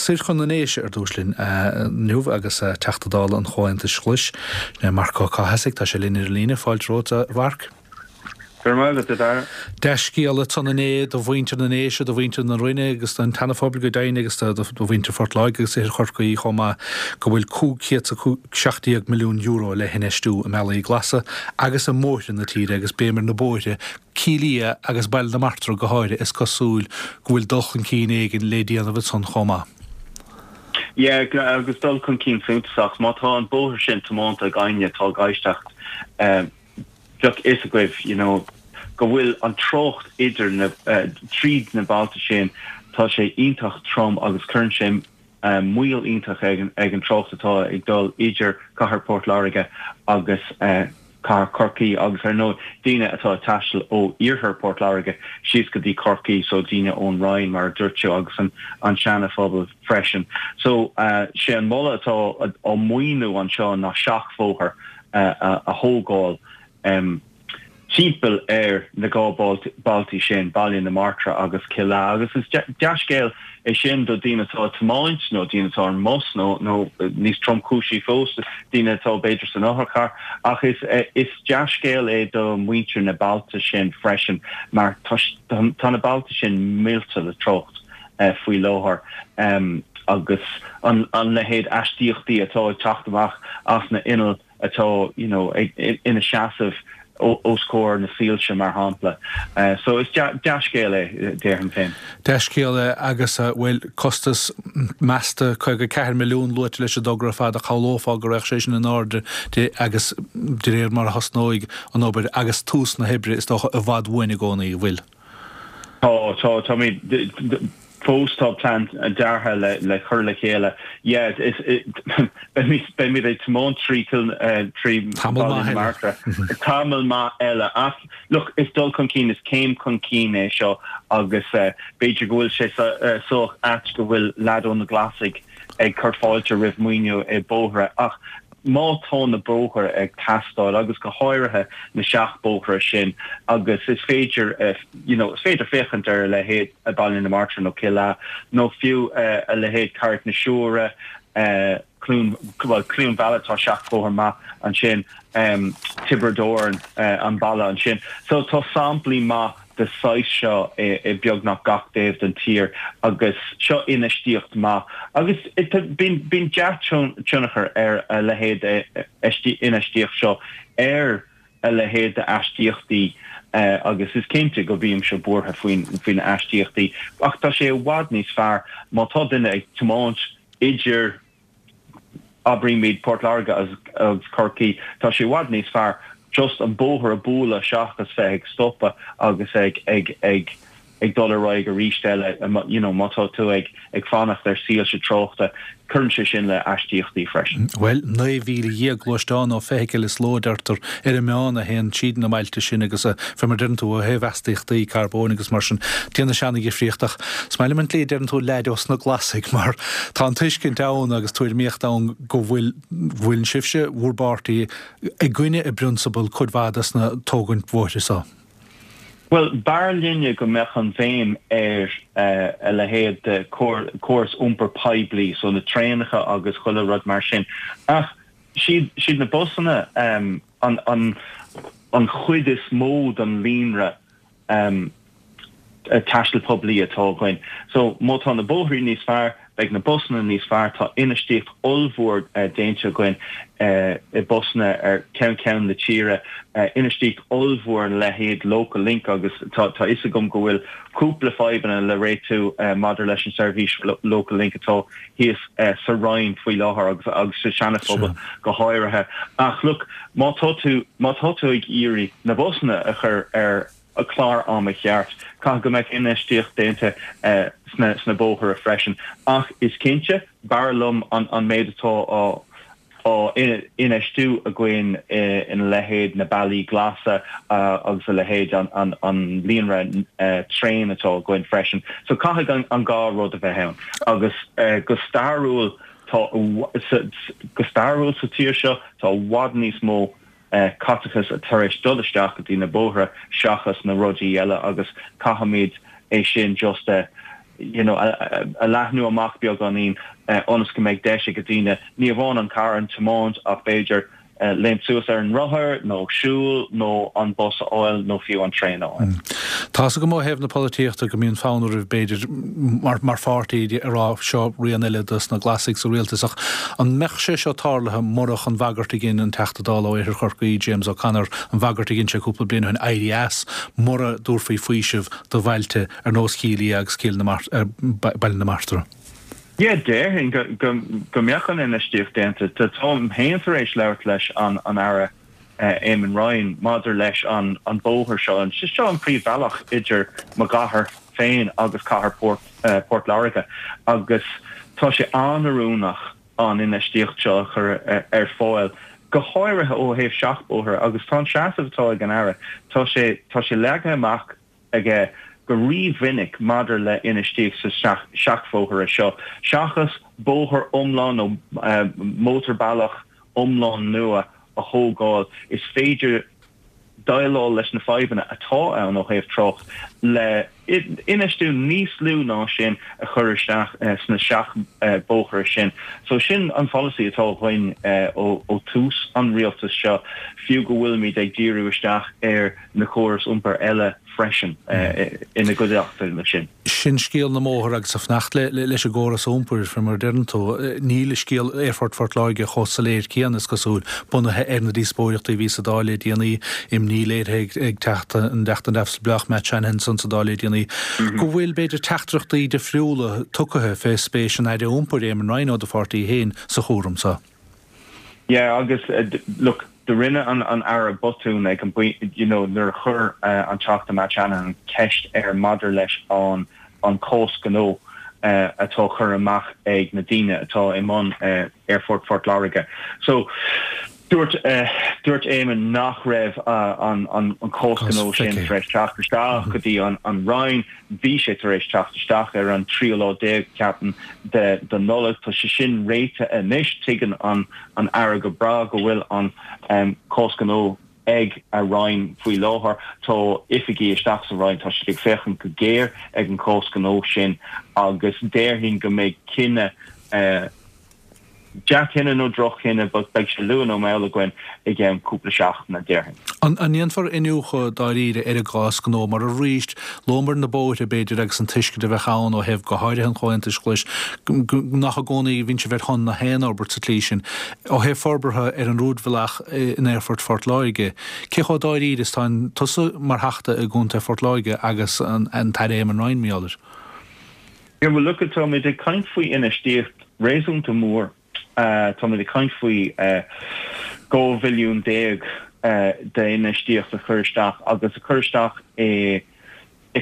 Soir chun na nDéise ar dtús linn inniu agus Teachta Dála an Chomhaontais Ghlais, sin é Marc Ó Cathasaigh, tá sé linn ar an líne. Fáilte romhat, a Mhairc. Go raibh maith agat, a Dhara. Dea-scéala ansan inné do mhuintir na nDéise, do mhuintir na Rinne agus don tSeana-Phobal go deimhin agus do mhuintir Phort Láirge agus Oirthear Chorcaí chomh maith go bhfuil €517 milliún le hinfheistiú i mbealaí glasa agus i mbóithre na tíre agus béim ar na bóithre, Cill Ia agus Baile na Martra go háirithe, is cosúil go bhfuil dul chun cinn éigin le déanamh ansan chomh maith. Yeah, agus dul chun cinn suntasach. Má tá an bóthar sin tiománta ag éinne atá ag éisteacht, bheadh fhios agaibh, you know, go bhfuil an trácht idir na, tríd na bailte sin, tá sé iontach trom agus cuireann sé moill iontach ag an trácht atá ag dul idir cathair Port Láirge agus cathair Chorcaí agus ar ndóigh daoine atá ag taisteal ó iarthar Port Láirge síos go dtí Corcaigh so daoine ón Rinn mar a dúirt tú agus an an Seana-Phobal freisin. So sé an moladh atá á maoiniú anseo ná seachbhóthar a thógáil. timpeall ar na 2 bailte sin, Baile na Martra agus Cill Ea, agus is dea-scéal é sin do daoine atá ag tiomáint nó daoine atá ar an mbus nó, nó níos tromchúisí fós, daoine atá b'fhéidir san otharcharr. Ach is, is dea-scéal é do mhuintir na bailte sin freisin mar tá, tá na bailte sin millte le trácht faoi láthair agus an, an leithéid astaíochtaí atá ag teacht amach as na innill atá you know ina seasamh os comhair na soilse mar shampla. So is dea-scéal é, déarfainn féin. Dea-scéal é agus, bhuel, costas measta 54 milliún luaite leis an dtogra ar fad ach shamhlófá go raghadh sé sin in airde de agus de réir mar a thosnóidh an obair agus tús na hoibre is dócha i bhfad uainn i gcónaí, an bhfuil? Tá, tá, táimid, fós tá plean deartha le le cur le chéile. Yeah, is, beimid, beimid ag tiomáint trí Cill, trí Tamall Bhaile maith na eile. Martra tamall maith eile ach look, is dul chun cinn, is céim chun cinn é seo agus b'fhéidir go bhfuil sé sách ait go bhfuil leaid ó na Glasaigh ag cur fáilte roimh maoiniú i bóithre ach má tá na bóithre ag teastáil agus go háirithe na seachbhóithre sin agus is féidir you know is féidir féachaint ar a leithéid Baile na Martra nó Cill Ea nó fiú a leithéid Carraig na Siúire, Cluain, bhuel Cluain Mheala tá seachbhóthar maith ansin, Tiobraid Árann an baile ansin. So tá samplaí maith de saghas seo i beagnach gach taobh den tír agus seo infheistíocht maith agus bíonn dea-tionchar ar a leithéid infheistíocht seo ar a leithéid d'astaíochtaí agus is cinnte go mbímse buartha faoi na astaíochtaí ach tá sé i bhfad níos fearr má tá duine ag tiomáint idir abraímid Port Láirge agus Corcaigh, tá sé i bhfad níos fearr just an bóthar a bhualadh seachas bheith ag stopadh agus ag ag ag ag dul ar aghaidh arís eile, you know, má tá tú ag ag fanacht ar soilse tráchta, cuireann sé sin le astaíochtaí freisin. Bhuel, 19,000 gluaisteán nó feithicil is ló a deirtear ar an meán a théann tríd na mbailte sin agus fé mar deireann tú ó thaobh astaíochtaí carbóin agus mar sin déanann sé ana-dhifríocht ach is maith liom an tslí a deireann tú leaid ós na Glasaigh mar tá an tuiscint ann agus tuairimíocht ann go bhfuil bhfuil sibhse, bhur bpáirtí, i gcoinne i bprionsabal cuid mhaith des na tógaint bhóithre so. Bhuel, b'fhearr linne go mbeadh an bhéim ar a leithéid de chóras iompair poiblí, so na traenacha agus chuile rud mar sin. Ach siad na busanna an chuid is mó den líonra taistil poiblí atá againn. So má tá na bóithrí níos fearr, beidh na busanna níos fearr. Tá infheistíocht ollmhór déanta againn i busanna ar ceann ceann na tíre, infheistíocht ollmhór ina leithéid Local Link agus tá a fhios agam go bhfuil cúpla fadhbanna le réitiú maidir leis an seirbhís Local Link atá thíos sa Rinn faoi láthair agus agus sa Seana-Phobal go háirithe. Ach look, má tá tú má tá tú ag iarraidh na busanna a chur ar a clár ama cheart. Caithfidh go mbeadh infheistíocht déanta sna bóithre freisin. Ach is cinnte, b'fhearr liom an méid atá á infheistiú againn ina leithéid na bealaí glasa agus a leithéid an líonra traein atá againn freisin. So caithfidh an dhá rud a bheith ann. Agus go stairiúil tá go stairiúil sa tír seo tá i bhfad níos mó caiteachas tar éis dul isteach go dtí na bóithre seachas na rudaí eile agus caithfimid é sin just a. you know, a leathnú amach beagáinín ionas go mbeidh deis ag daoine ní amháin an carr a thiomáint ach b'fhéidir léimt suas ar an rothar nó siúl nó an bus a fháil nó fiú an traein a fháil. Tá's agam ó thaobh na polaitíochta go mbíonn fonn oraibh b'fhéidir mar mar pháirtí a rá seo rian eile dos na Glasaigh sa rialtas ach an mbeadh sé seo tarlaithe murach an bhagairt a dhein an Teachta Dála ó Oirthear Chorcaí, James O'Connor, an bhagairt a dhein sé cúpla bliain ó shin éirí as mura dtabharfaí faoiseamh do bhailte ar nós Chill Ia agus Cill na Baile na Martra. Yeah, déarfainn go mbeadh an infheistíocht déanta. Táim féin tar éis labhairt leis an Aire Eamon Ryan maidir leis an bóthar seo. Seo an príomhbhealach idir mo chathair féin agus cathair Port Láirge agus tá sé an-oiriúnach an infheistíocht seo a chur ar fáil, go háirithe ó thaobh seachbhóithre agus tá an seasamh atá ag an Aire, tá sé tá sé leagtha amach aige go rímhinic maidir le infheistíocht sa seachbhóithre seo, seachas bóthar iomlán nó mótarbhealach iomlán nua a thógáil, is féidir déileáil leis na fadhbanna atá ann ó thaobh trácht le infheistiú níos lú ná sin a chur isteach sna seachbhóithre sin. So sin an pholasaí atá againn ó tús an rialtais seo, fiú go bhfuilimid ag díriú isteach ar na córais iompair eile freisin ina gcuideachta leis sin. Sin scéal na mbóthar agus ag fanacht leis an gcóras iompair, fé mar a deireann tú, níl scéal Aerfort Phort Láirge chomh soiléir céanna, is cosúil, bunaithe ar na díospóireachtaí a bhí sa Dáil le déanaí, imní léirithe ag Teachta an Teachta Neamhspleách Matt Shanahan ansan sa Dáil le déanaí, go bhfuil, b'fhéidir, teachtaireachtaí difriúla tugtha fé spéis an Aire Iompair, Eamon Ryan ó do pháirtí féin, sa chúram so. Yeah agus look do rinne an an Aire botún ag an you know nuair a chuir an Teachta Matt Shanahan ceist air maidir leis an an cás gnó atá curtha amach ag na daoine atá i mbun Aerfort Phort Láirge. So dúirt dúirt Eamon nach raibh an an an cás gnó sin tar éis teacht isteach go dtí an an Roinn. Bhí sé tar éis teacht isteach ar an tríú lá déag, ceapaim, de de Nollaig. Tá sé sin réitithe anois. Tuigeann an an Aire go breá go bhfuil an cás gnó ag a Roinn faoi láthair. Tá oifigigh isteach sa Roinn, tá siad ag féachaint go géar ag an cás gnó sin agus déarfainn go mbeidh cinneadh Dea-chinneadh nó droch-chinneadh, but beidh sé luath nó mall againn i gceann cúpla seachtaine, déarfainn. An ndéanfar iniúchadh dáiríre ar an gcás gnó mar arís, luamar na bóithre, b'fhéidir, agus an tuiscint a bheadh ann ó thaobh go háirithe an Chomhaontais Ghlais, nach i gcónaí a bhíonn sibh ar shon na haon fhorbairt sa tslí sin. Ó thaobh forbartha ar an rúidbhealach in Aerfort Phort Láirge, cé chomh dáiríre is atá tusa mar Theachta i gContae Phort Láirge agus an tAire Eamon Ryan, mar gheall air? Yeah, well look, táimid ag caint faoi infheistíocht réasúnta mór. Táimid ag caint faoi 12 bhilliún d'infheistíocht a chur isteach agus a chur isteach i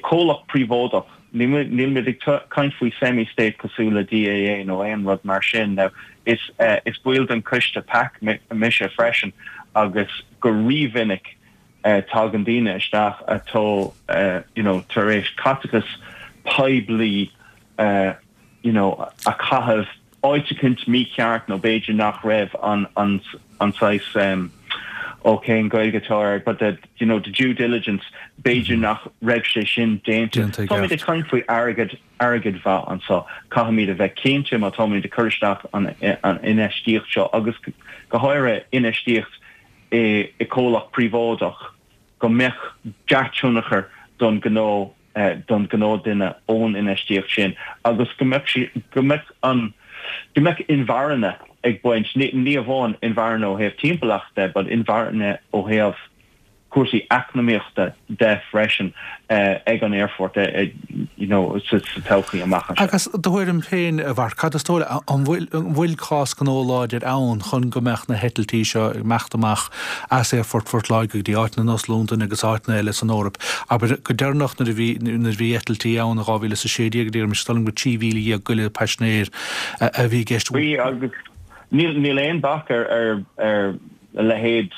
comhlacht príobháideach. Nílimid ag caint faoi semi-state cosúil le DAA nó aon rud mar sin. Now, is is baill den choiste PAC mise freisin agus go rímhinic tagann daoine isteach atá you know tar éis caiteachas poiblí you know a chaitheamh áit eicínt mícheart nó b'fhéidir nach raibh an an an saghas um, ó cén Gaeilge atá air but the you know the due diligence b'fhéidir nach raibh sé sin déanta. Táimid ag caint faoi airgead airgead mhaith anseo. Caithfimid a bheith cinnte má táimid ag cur isteach an an infheistíocht seo agus go háirithe infheistíocht i comhlacht príobháideach go mbeadh dea-tionchar don ghnó don ghnáthdhuine ón infheistíocht sin agus go mbeadh sí go mbeadh an go mbeadh inmharthana ag baint ní amháin inmharthana ó thaobh timpeallachta but inmharthana ó thaobh cúrsaí eacnamaíochta de freisin ag an aerfort you know sa todhchaí amach anseo. Agus do thuairim féin, a Mharc, cad is dóigh leat, an bhfuil an bhfuil cás gnó láidir ann chun go mbeadh na heitiltí seo ag imeacht amach as Aerfort Phort Láirge go dtí áiteanna ar nós Londain agus áiteanna eile san Eoraip? Abair, go deireanach nuair a bhí nuair a bhí eitiltí ann in 2016, deirim, is dóigh liom gur 13,000 goile paisinéir a bhí i gceist. Bhí agus níl níl aon bac ar ar ar a leithéid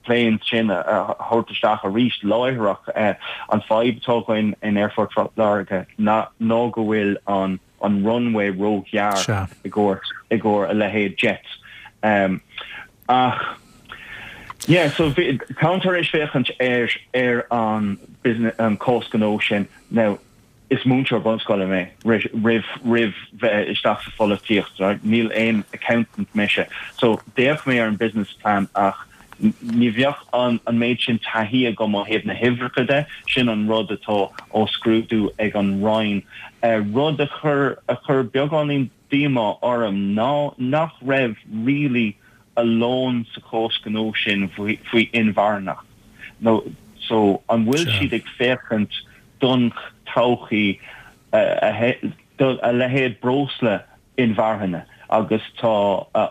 planes sin a thabhairt isteach arís láithreach. An fadhb atá againn in Aerfort Phort Láirge ná go bhfuil an an runway róghearr i gcomhair i gcomhair a leithéid jets. Ach yeah so táim tar éis féachaint ar ar an business an cás gnó sin. Now. Is múinteoir bunscoile mé roimh roimh bheith isteach sa pholaitíocht, right? Níl aon accountant mise. So d'fhéach mé ar an business plan ach ní bheadh an an méid sin taithí agam ó thaobh na huimhreacha de, sin an rud atá á scrúdú ag an Roinn. Rud a chuir a chuir beagáinín díomá orm ná nach raibh really a lán sa chás gnó sin faoi inmharthanacht nó so an bhfuil siad ag féachaint don todhchaí do a leithéid breosla inmharthana agus tá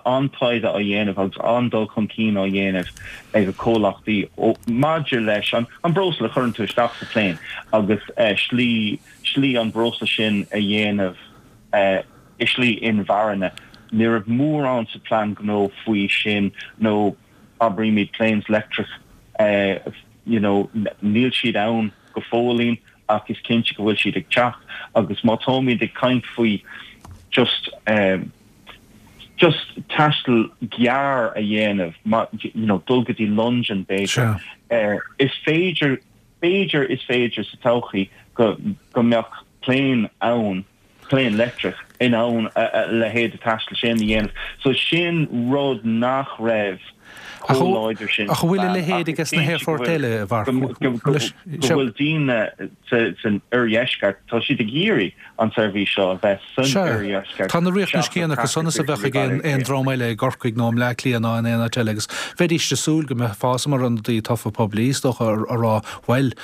an-taighde á dhéanamh agus an-dul chun cinn á dhéanamh ag comhlachtaí maidir leis an breosla a chuireann tú isteach sa plane agus slí slí an breosla sin a dhéanamh i slí inmharthana. Ní raibh mórán sa plean gnó faoi sin nó abraímid planes leictreach you know níl siad ann go fóillín ach is cinnte go bhfuil siad ag teacht agus má táimid ag caint faoi just just taisteal gearr a dhéanamh you know dul go dtí Londain b'fhéidir is féidir b'fhéidir is féidir sa todhchaí go go mbeadh plane ann plane leictreach in ann a leithéid de taisteal sin a dhéanamh. So sin rud nach raibh chomh láidir sin Ach an bhfuil a leithéid aige sna haerfoirt eile, a Mharc? Go bhfuil daoine san oirdheisceart, tá siad ag iarraidh an tseirbhís seo a bheith san oirdheisceart. Tá na riachtanais céanna acu san is a bheadh ag aon dream eile i gCorcaigh nó i mBleá Cliath ná in aon áit eile agus bheidís ag súil go mbeifeá mar ionadaí tofa poiblí, is dócha, a rá, bhuel,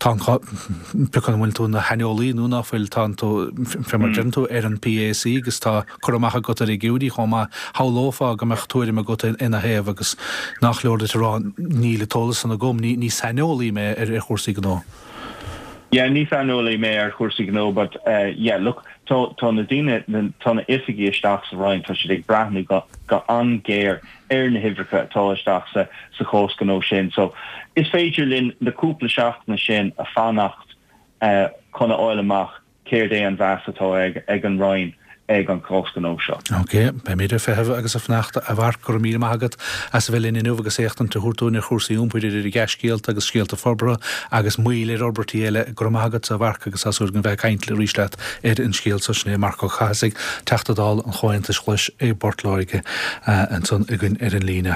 Tá an, pé acu an bhfuil tú ina shaineolaí nó ná fuil, tá tú, fé mar a deireann tú, ar an PAC agus tá cur amach agat ar fhigiúirí chomh maith. Shamhlófá go mbeadh tuairim agat ina thaobh agus nach leor duit a rá níl an t-eolas san agam, ní saineolaí mé ar chúrsaí gnó. Yeah, ní saineolaí mé ar chúrsaí gnó but yeah, look, tá, tá na daoine, tá na oifigigh isteach sa Roinn, tá siad ag breathnú go, go an-ghéar ar na huimhreacha atá isteach sa sa chás gnó sin. So, is féidir linn na cúpla seachtaine sin a fanacht chun a fháil amach céard é an mheas atá ag ag an Roinn ag an chás gnó seo. Ok, beimid ag feitheamh agus ag fanacht a Mharc, go raibh míle maith agat as a bheith linn inniu agus éachtaint a thabhairt dúinn ar chúrsaí iompair idir dea-scéalta agus scéalta forbartha agus moill ar fhorbairtí eile. Go raibh maith agat a Mharc agus tá súil againn bheith ag caint arís leat ar an scéal seo. Sin é Marc Ó Cathasaigh, Teachta Dála an Chomhaontais Ghlais i bPort Láirge, ansan againn ar an líne.